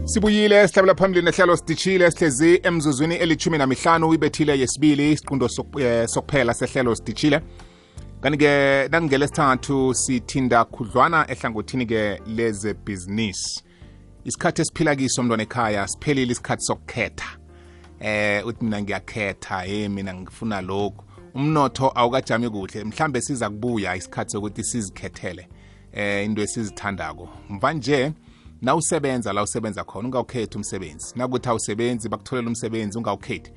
Sibuyile sihlabela phambili nehlelo sidishile sihlezi emzuzwini eli-15 ibethile yesibili isiqundo sokuphela sehlelo sidishile. Kanti-ke nangelesithathu sithinda khudlwana ehlangothini-ke lezebhizinisi. Isikhathi esiphila kiso mntwana ekhaya siphelile isikhathi sokukhetha. Uthi mina ngiyakhetha, mina ngifuna lokhu. Umnotho awukajami kuhle, mhlambe siza kubuya isikhathi sokuthi sizikhethele into esizithandako. Mvanje na usebenza la usebenza khona ungawukhethi umsebenzi. Nakuthi awusebenzi bakutholela umsebenzi ungawukhethi.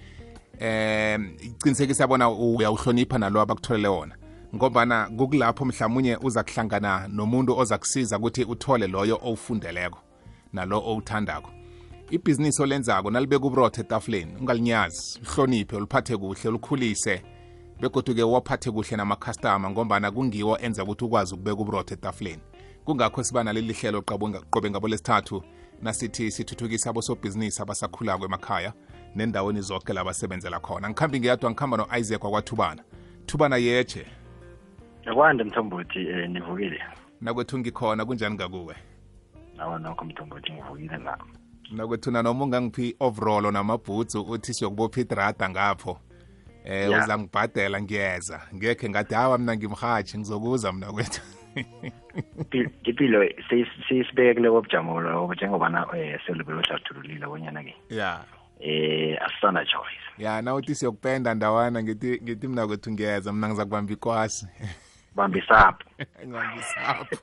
Iqinisekisa bona uyawuhlonipha nalo abakutholele wona. Ngobana kukulapho mhlawumnye uza kuhlangana nomuntu oza kusiza ukuthi uthole loyo owufundeleko nalo owuthandako. Ibhizinisi olenzako nalibeka uburotho etafuleni ungalinyazi, uhloniphe, uliphathe kuhle, ulikhulise begodu-ke waphathe kuhle nama-customer ngombana kungiwo enza ukuthi ukwazi ukubeka uburotho etafuleni. Kungakho siba naleli hlelo qobe ngabo lesithathu nasithi sithuthukisa abosobhizinisi abasakhulako emakhaya nendaweni zonke la basebenzela khona. Ngikhambi ngiyadwa ngikhamba no-Isaac wakwaThubana. Thubana yeche. Yakwande Mthombothi nivukile. Nakwethu ngikhona kunjani ngakuwe? Nawa nokho Mthombothi ngivukile nako. Nakwethu noma ungangiphi overall namabhutsu uthi siyokubopha idrada ngapho. Uza ngibhadela ngiyeza. Ngekhe ngathi hawa mina ngimhathi ngizokuza mina kwethu. Impilo sisibekele kobujamo lo njengobana selibelo hlathululile bonyana ke. Yeah. Asana choice. Yeah, na uthi siyokupenda ndawana ngithi mina kwethu ngiyeza mina ngizakubamba ikwasi. Bambisapho. Ngibambisapho.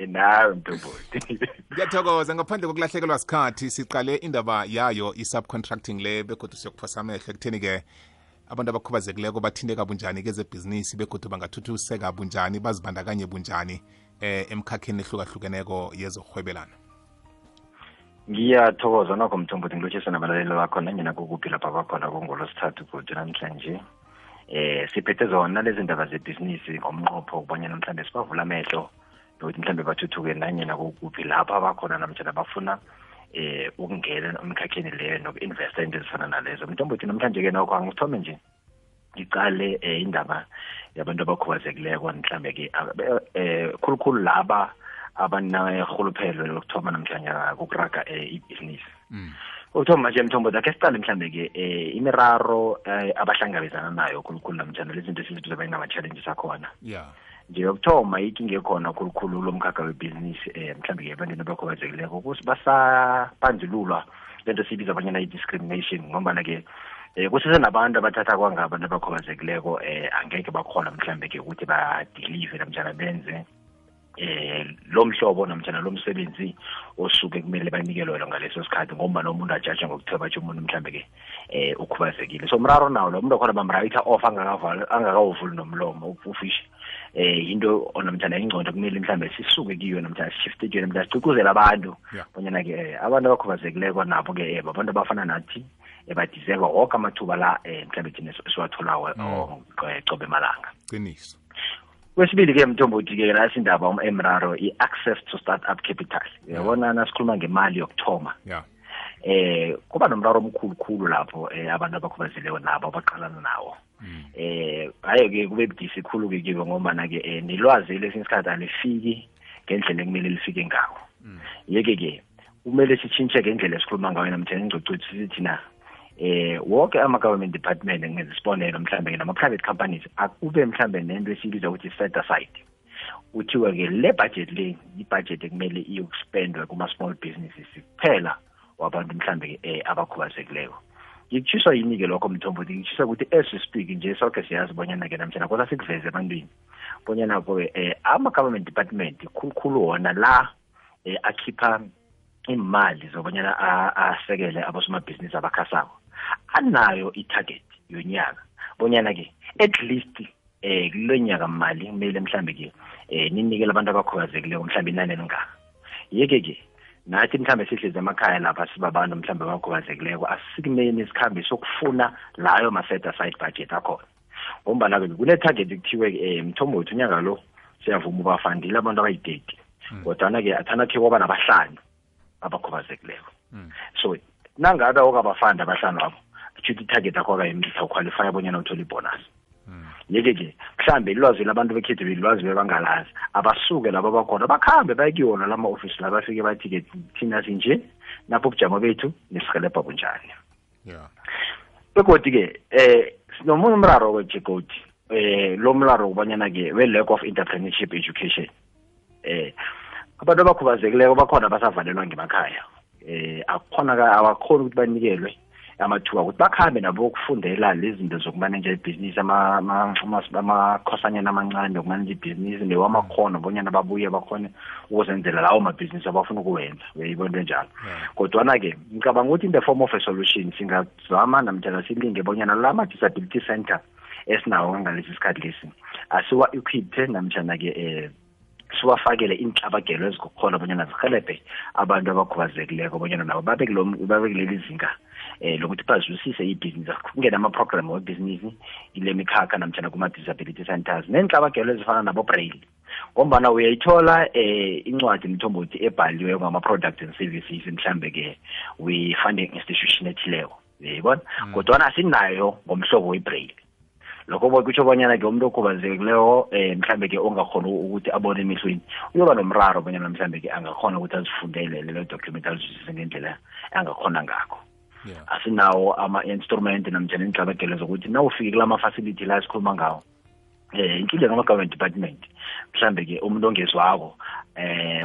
Nawe Mthombothi. Ngiyathokoza ngaphandle kokulahlekelwa isikhathi siqale indaba yayo i-subcontracting le begodu siyokuphosa amehlo ekutheni-ke abantu abakhubazekileko bathinteka bunjani kezebhizinisi begodu bangathuthuseka bunjani bazibandakanye bunjani emkhakheni ehlukahlukeneko yezokurhwebelana. Ngiyathokoza nokho Mthombothi ngilotshisa nabalaleli bakho nanyena kukuphi lapha bakhona kungolosithathu kuthi namhlanje. Siphethe zona lezi ndaba zebhizinisi ngomnqopho ukubonyana mhlawumbe sibavula amehlo nokuthi mhlawumbe bathuthuke nanyena kukuphi lapha bakhona namhlanje bafuna ukungena emkhakheni leyo noku-investa into ezifana nalezo. Mthombothi namhlanje-ke nokho angithome nje ngicale indaba yabantu abakhubazekileko mhlawumbe-ke khulukhulu laba abanerhuluphelo lokuthoma namhlanje kukuraga ibhizinisi. Ukuthoma nje Mthombothi akhe siqale mhlawumbe-ke imiraro abahlangabezana nayo khulukhulu namhlanje lezi zinto esizibiza bayinama-challenges akhona. Yeah. Nje yokuthoma ikinga ekhona khulukhulu lomkhakha webhizinisi mhlawumbe-ke ebantwini abakhubazekileko basabandlululwa lento sibiza abanyana i-discrimination ngombana-ke kusesenabantu abathatha kwangabantu abakhubazekileko angeke bakhona mhlawumbe-ke ukuthi badelive namtjana benze lo mhlobo namtjana lo msebenzi osuke kumele banikelwe ngaleso sikhathi ngombana umuntu ajaje ngokuthoba nje umuntu mhlawumbe-ke ukhubazekile. So mraro nawo lo muntu okhona bamrayitha off angakawuvuli nomlomo ufishe into namtjana ingcondo kumele mhlawumbe sisuke kiyo namtjana sishifte kiyo namtjana sicukuzela abantu bonyana-ke abantu abakhubazekileko nabo-ke abantu abafana nathi badeserve woke amathuba la mhlawumbe thina siwatholako qobe malanga. Qiniso. Kwesibili-ke Mthombothi-ke nasi indaba emraro i-access to start-up capital. Yabona nasikhuluma ngemali yokuthoma. Yeah. Kuba nomraro omkhulu lapho abantu abakhubazekileko nabo abaqalana nawo. Hayi-ke kube budisi khulu-ke kibo ngombana-ke nelwazi lesinye isikhathi alifiki ngendlela ekumele lifike ngawo. Yeke-ke kumele sitshintshe ngendlela esikhuluma ngayo namtjana ingcocuthu sithina wonke ama-government department ngenza isibonelo mhlawumbe nama-private companies akube mhlawumbe nento esibiza ukuthi set aside kuthiwa-ke le budget le i-budget ekumele iyokuspendwe kuma-small businesses kuphela wabantu mhlawumbe abakhubazekileko. Ngikutshiswa yini-ke lokho Mthombothi ngikutshiswa ukuthi as we speak nje sonke siyazi bonyana-ke namtjana kosa sikuveze ebantwini bonyana-ke ama-government department khulukhulu wona la akhipha imali zobonyana asekele abosomabhizinisi abakhasako anayo i-target yonyaka bonyana-ke at least kulo nyaka mali kumele mhlawumbe-ke ninikele abantu abakhubazekileko mhlawumbe inani elingaka. Yeke-ke nathi mhlawumbe sihlezi emakhaya lapha sibabantu mhlawumbe abakhubazekileko asikumeni sikhambe sokufuna layo ma-set aside budget akhona ngombana-ke kune-target kuthiwe Mthombothi unyaka lo siyavuma ubafandile abantu abayi-30 kodwana-ke athanakhe kwaba nabahlanu abakhubazekileko. So nangabe okabafanda abahlanu abo kusho ukuthi i-target akho akayimitha uqualify bonyana uthole ibonus. yeke mhlambe ilwazi labantu bekhethu bilwazi bebangalazi abasuke laba bakhona bakhambe bayekuyona lama office la bafike bathi ke thina sinje napho ubujamo bethu nesihelebha bunjani begodwa ke sinomunye umraro wejegoti lo mraro kubanyana ke we lack of entrepreneurship education abantu abakhubazekileko bakhona basavalelwa ngemakhaya abakhona ukuthi banikelwe amathuba ukuthi bakhambe nabo ukufundela lezi zinto zokumanage ibhizinisi amakhosanyana amancane okumanage ibhizinisi newamakhono bonyana babuye bakhone ukuzenzela lawo mabhizinisi abafuna ukuwenza uyibona njalo kodwa ke ngicabanga ukuthi in the form of a solution singazama namtjana silinge bonyana lama disability center esinawo ngalesi sikhathi lesi asiwa equipped namtjana ke siwafakele inhlabagelo ezikukhona bonyana zihelebhe abantu abakhubazekileko bonyana nabo babekuleli zinga lokuthi bazwisise ibhizinisi kungena ama-program webhizinisi ile mikhakha namtjana kuma-disability centers nenhlabagelo ezifana nabo-braille ngombana uyayithola incwadi mthombothi ebhaliwe ngama-products and services mhlambe-ke we-funding institution ethileko uyayibona kodwana asinayo ngomhlobo we-braille lokho kutsho bonyana ke umuntu okhubazekileko mhlambe ke ongakhona ukuthi abone emehlweni uyoba nomraro bonyana mhlambe ke angakhona ukuthi azifundele lelo document azwisise ngendlela angakhona ngakho asinawo ama-instrument namtjana inhlabagelo zokuthi nawufike kulama-facility la sikhuluma ngawo inkinga ngama-government department mhlambe ke umuntu ongezwako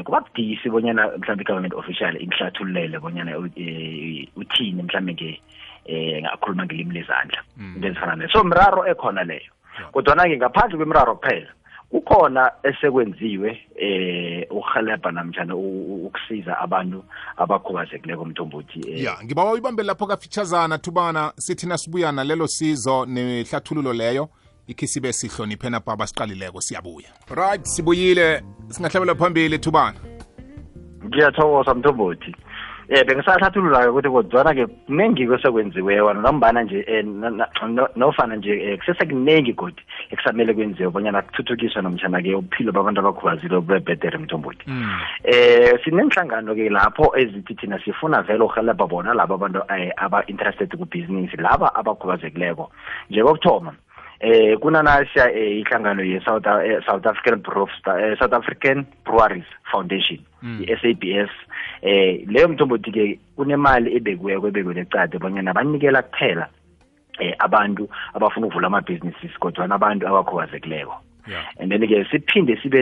kuba budisi bonyana mhlambe i-government official imhlathululele bonyana uthini mhlambe ke ngakhuluma ngelimi lezandla into ezifana nayo so mraro ekhona leyo kodwa-ke ngaphandle kwemiraro kuphela kukhona esekwenziwe ukuhelebha namtjana ukusiza abantu abakhubazekileko mthombothi ngibawa uyibambe lapho kafitshazana thubana sithi nasibuyana lelo sizo nehlathululo leyo ikhisibe sihloniphe napho abasiqalileko siyabuya right sibuyile singahlabela phambili thubana ngiyathokoza mthombothi bengisahlathulula ukuthi kodwana-ke kuningi kwesekwenziweyo nambana nje nofana nje kusesekuningi godi ekusamele kwenziwe bonyana kuthuthukiswe nomtjana-ke ubuphilo babantu abakhubazile bebhedere mthombothi sinenhlangano-ke lapho ezithi thina sifuna vele uhelebha bona laba abantu aba-interested kubhizinisi laba abakhubazekileko njengokuthoma kunanasha ihlangano ye-South African Breweries Foundation i-SABS leyo mthombothi-ke kunemali ebekiweko ecade bonyana banikela kuphela abantu abafuna ukuvula amabhizinisi kodwa nabantu abakhubazekileko and then-ke siphinde sibe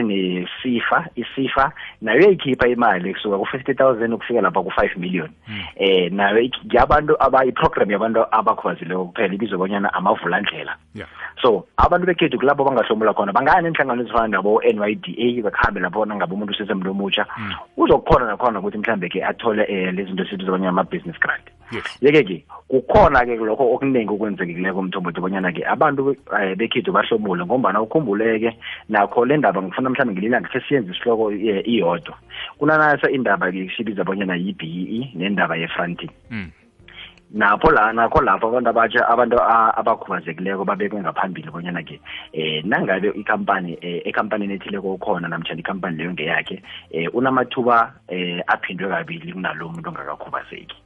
isifa nayo yayikhipha imali kusuka ku-50,000 ukufika lapha ku-5 million nayo yabantu iprogram yabantu abakhubazekileko kuphela ibizwe bonyana amavulandlela so abantu bekhethu kulapho bangahlomula khona bangaya nenhlangano ezifana nabo-NYDA bakhambe lapho nangabe umuntu usesemntu omutsha uzokukhona nakhona ukuthi mhlambe-ke athole lezi zinto esibizwa bonyana ama-business grant yeke-ke kukhona-ke lokho okuningi okwenzekileko mthombothi bonyana-ke abantu bekhethu bahlomule ngombana ukhumbuleke nakho le ndaba ngifuna mhlawumbe ngelilanga khe siyenze isihloko iyodwa kunanasa indaba-ke sibiza bonyana yi-BEE nendaba ye-fronting nakho lapho abantu abatsha abantu abakhubazekileko babekwe ngaphambili bonyana-ke nangabe ekampanini ethileko ukhona namtshana ikampani leyo ngeyakhe unamathuba aphindwe kabili kunalo muntu ongakakhubazeki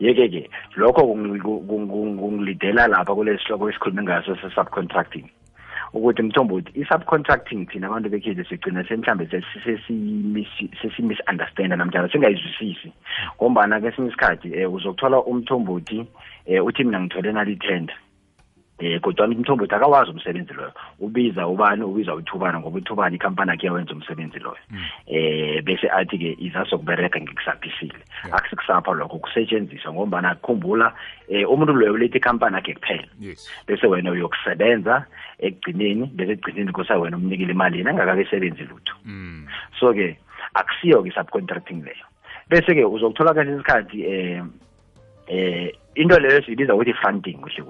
yeke-ke lokho kungilidela lapha kulesi sihloko esikhulume ngaso se-subcontracting ukuthi mthombothi i-subcontracting thina abantu bekhethu sigcina mhlambe sesi-misunderstanda namtjana singayizwisisi ngombana kesinye isikhathi uzokuthola umthombothi uthi mina ngithole nali-tender kodwa umthombothi akawazi umsebenzi loyo ubiza ubani ubiza uthubana ngoba uthubana ikampani yakhe yawenza umsebenzi loyo bese athi-ke izasokubereka ngikusaphisile akusikusapha lokho kusetshenziswa ngombana kukhumbula umuntu loyo uletha ikampani yakhe kuphela bese wena uyokusebenza ekugcineni bese ekugcineni kusa wena umnikile imali yena angakakesebenzi lutho so-ke akusiyo-ke i-subcontracting leyo bese-ke uzokuthola kahle isikhathi into leyo siyibiza ukuthi funding kuhle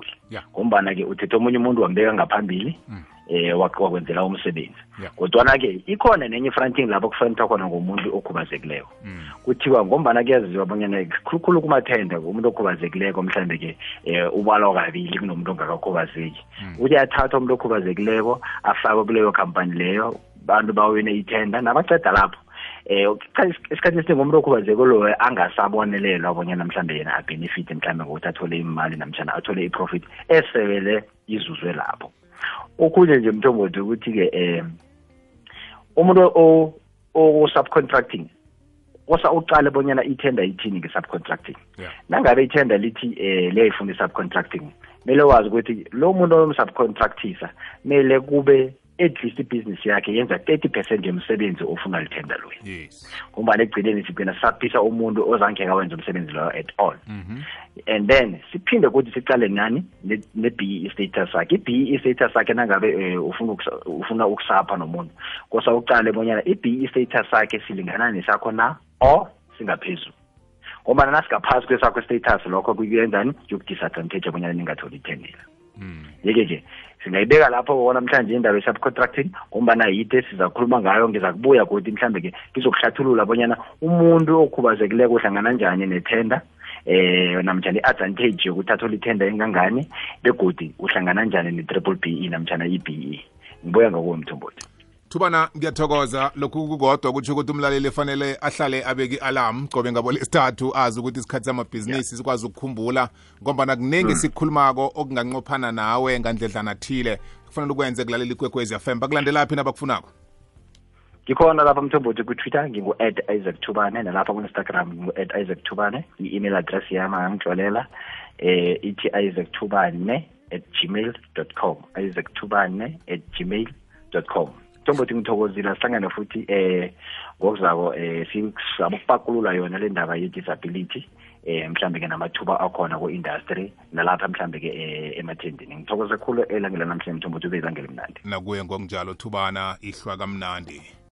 ngombana-ke uthethe omunye umuntu wambeka ngaphambili wakwenzela umsebenzi kodwana-ke ikhona nenye i-fronting lapho kufanithwa khona ngomuntu okhubazekileko kuthiwa ngombana kuyaziwa bonyana khulukhulu kumathenda umuntu okhubazekileko mhlambe-ke ubalwa kabili kunomuntu ongakakhubazeki uthi athatha umuntu okhubazekileko afakwe kuleyo khampani leyo bantu bawine ithenda nabaceda lapho isikhathi esiningi umuntu okhubazeko loyo angasabonelelwa bonyana mhlambe yena abenefit mhlambe ngokuthi athole imali namtshana athole i-profit esebele izuzwe lapho okunye nje Mthombothi ukuthi ke umuntu o subcontracting osa uqale bonyana itender ithini nge-subcontracting nangabe itender lithi liyayifuna i-subcontracting mele wazi ukuthi lo muntu omsubcontractisa mele kube at least ibusiness yakhe yenza 30% yomsebenzi ofuna litender loyo ngoba ekugcineni sigcina saphisa umuntu ozangeka wenza umsebenzi loyo at all and then siphinde ukuthi siqale nani ne-BE status sakhe i-BE status sakhe nangabe ufuna ukusapha nomuntu kosa uqale bonyana i-BE status sakhe silingana nesakho na or singaphezulu ngoba nasingaphasi kwesakho status lokho kuyenzani yokudisadvantage abonyana ningatholi itendela yeke singayibeka lapho bona mhlanje indaba ye-subcontracting ngombana yithe sizakhuluma ngayo ngiza kubuya kodwa mhlambe ke ngizokuhlathulula bonyana umuntu okhubazekileko uhlangana njani netender namtjana i-advantage yokuthi athole itender engangani begodi uhlangana njani ne-triple BE namtjana i-BE ngibuya ngakuwo Mthombothi. Thubana ngiyathokoza lokhu kukodwa kuthi ukuthi umlaleli efanele ahlale abeki alarm qobe ngabo lesithathu azi ukuthi isikhathi samabhizinisi sikwazi ukukhumbula ngoba kuningi sikhulumako okunganqophana nawe ngandledlana thile kufanele ukwenze kulalela iKwekwezi FM bakulandelaphi nabakufunako. Ngikhona lapha Mthombothi ku-Twitter ngingu@IsaacThubane nalapha ku-Instagram ngingu@IsaacThubane i-email address yami angangitlolela ithi isaacthubane@gmail.com isaacthubane@gmail.com. Mthombothi ngithokozile sihlangane futhi ngokuzako sizabokupakulula yona le ndaba ye-disability mhlambe ke namathuba akhona ku-industry nalapha mhlambe ke emathendeni ngithokoze khulu elangela namhlanje Mthombothi ube izangela mnandi nakuye ngokunjalo Thubana ihlwa kamnandi.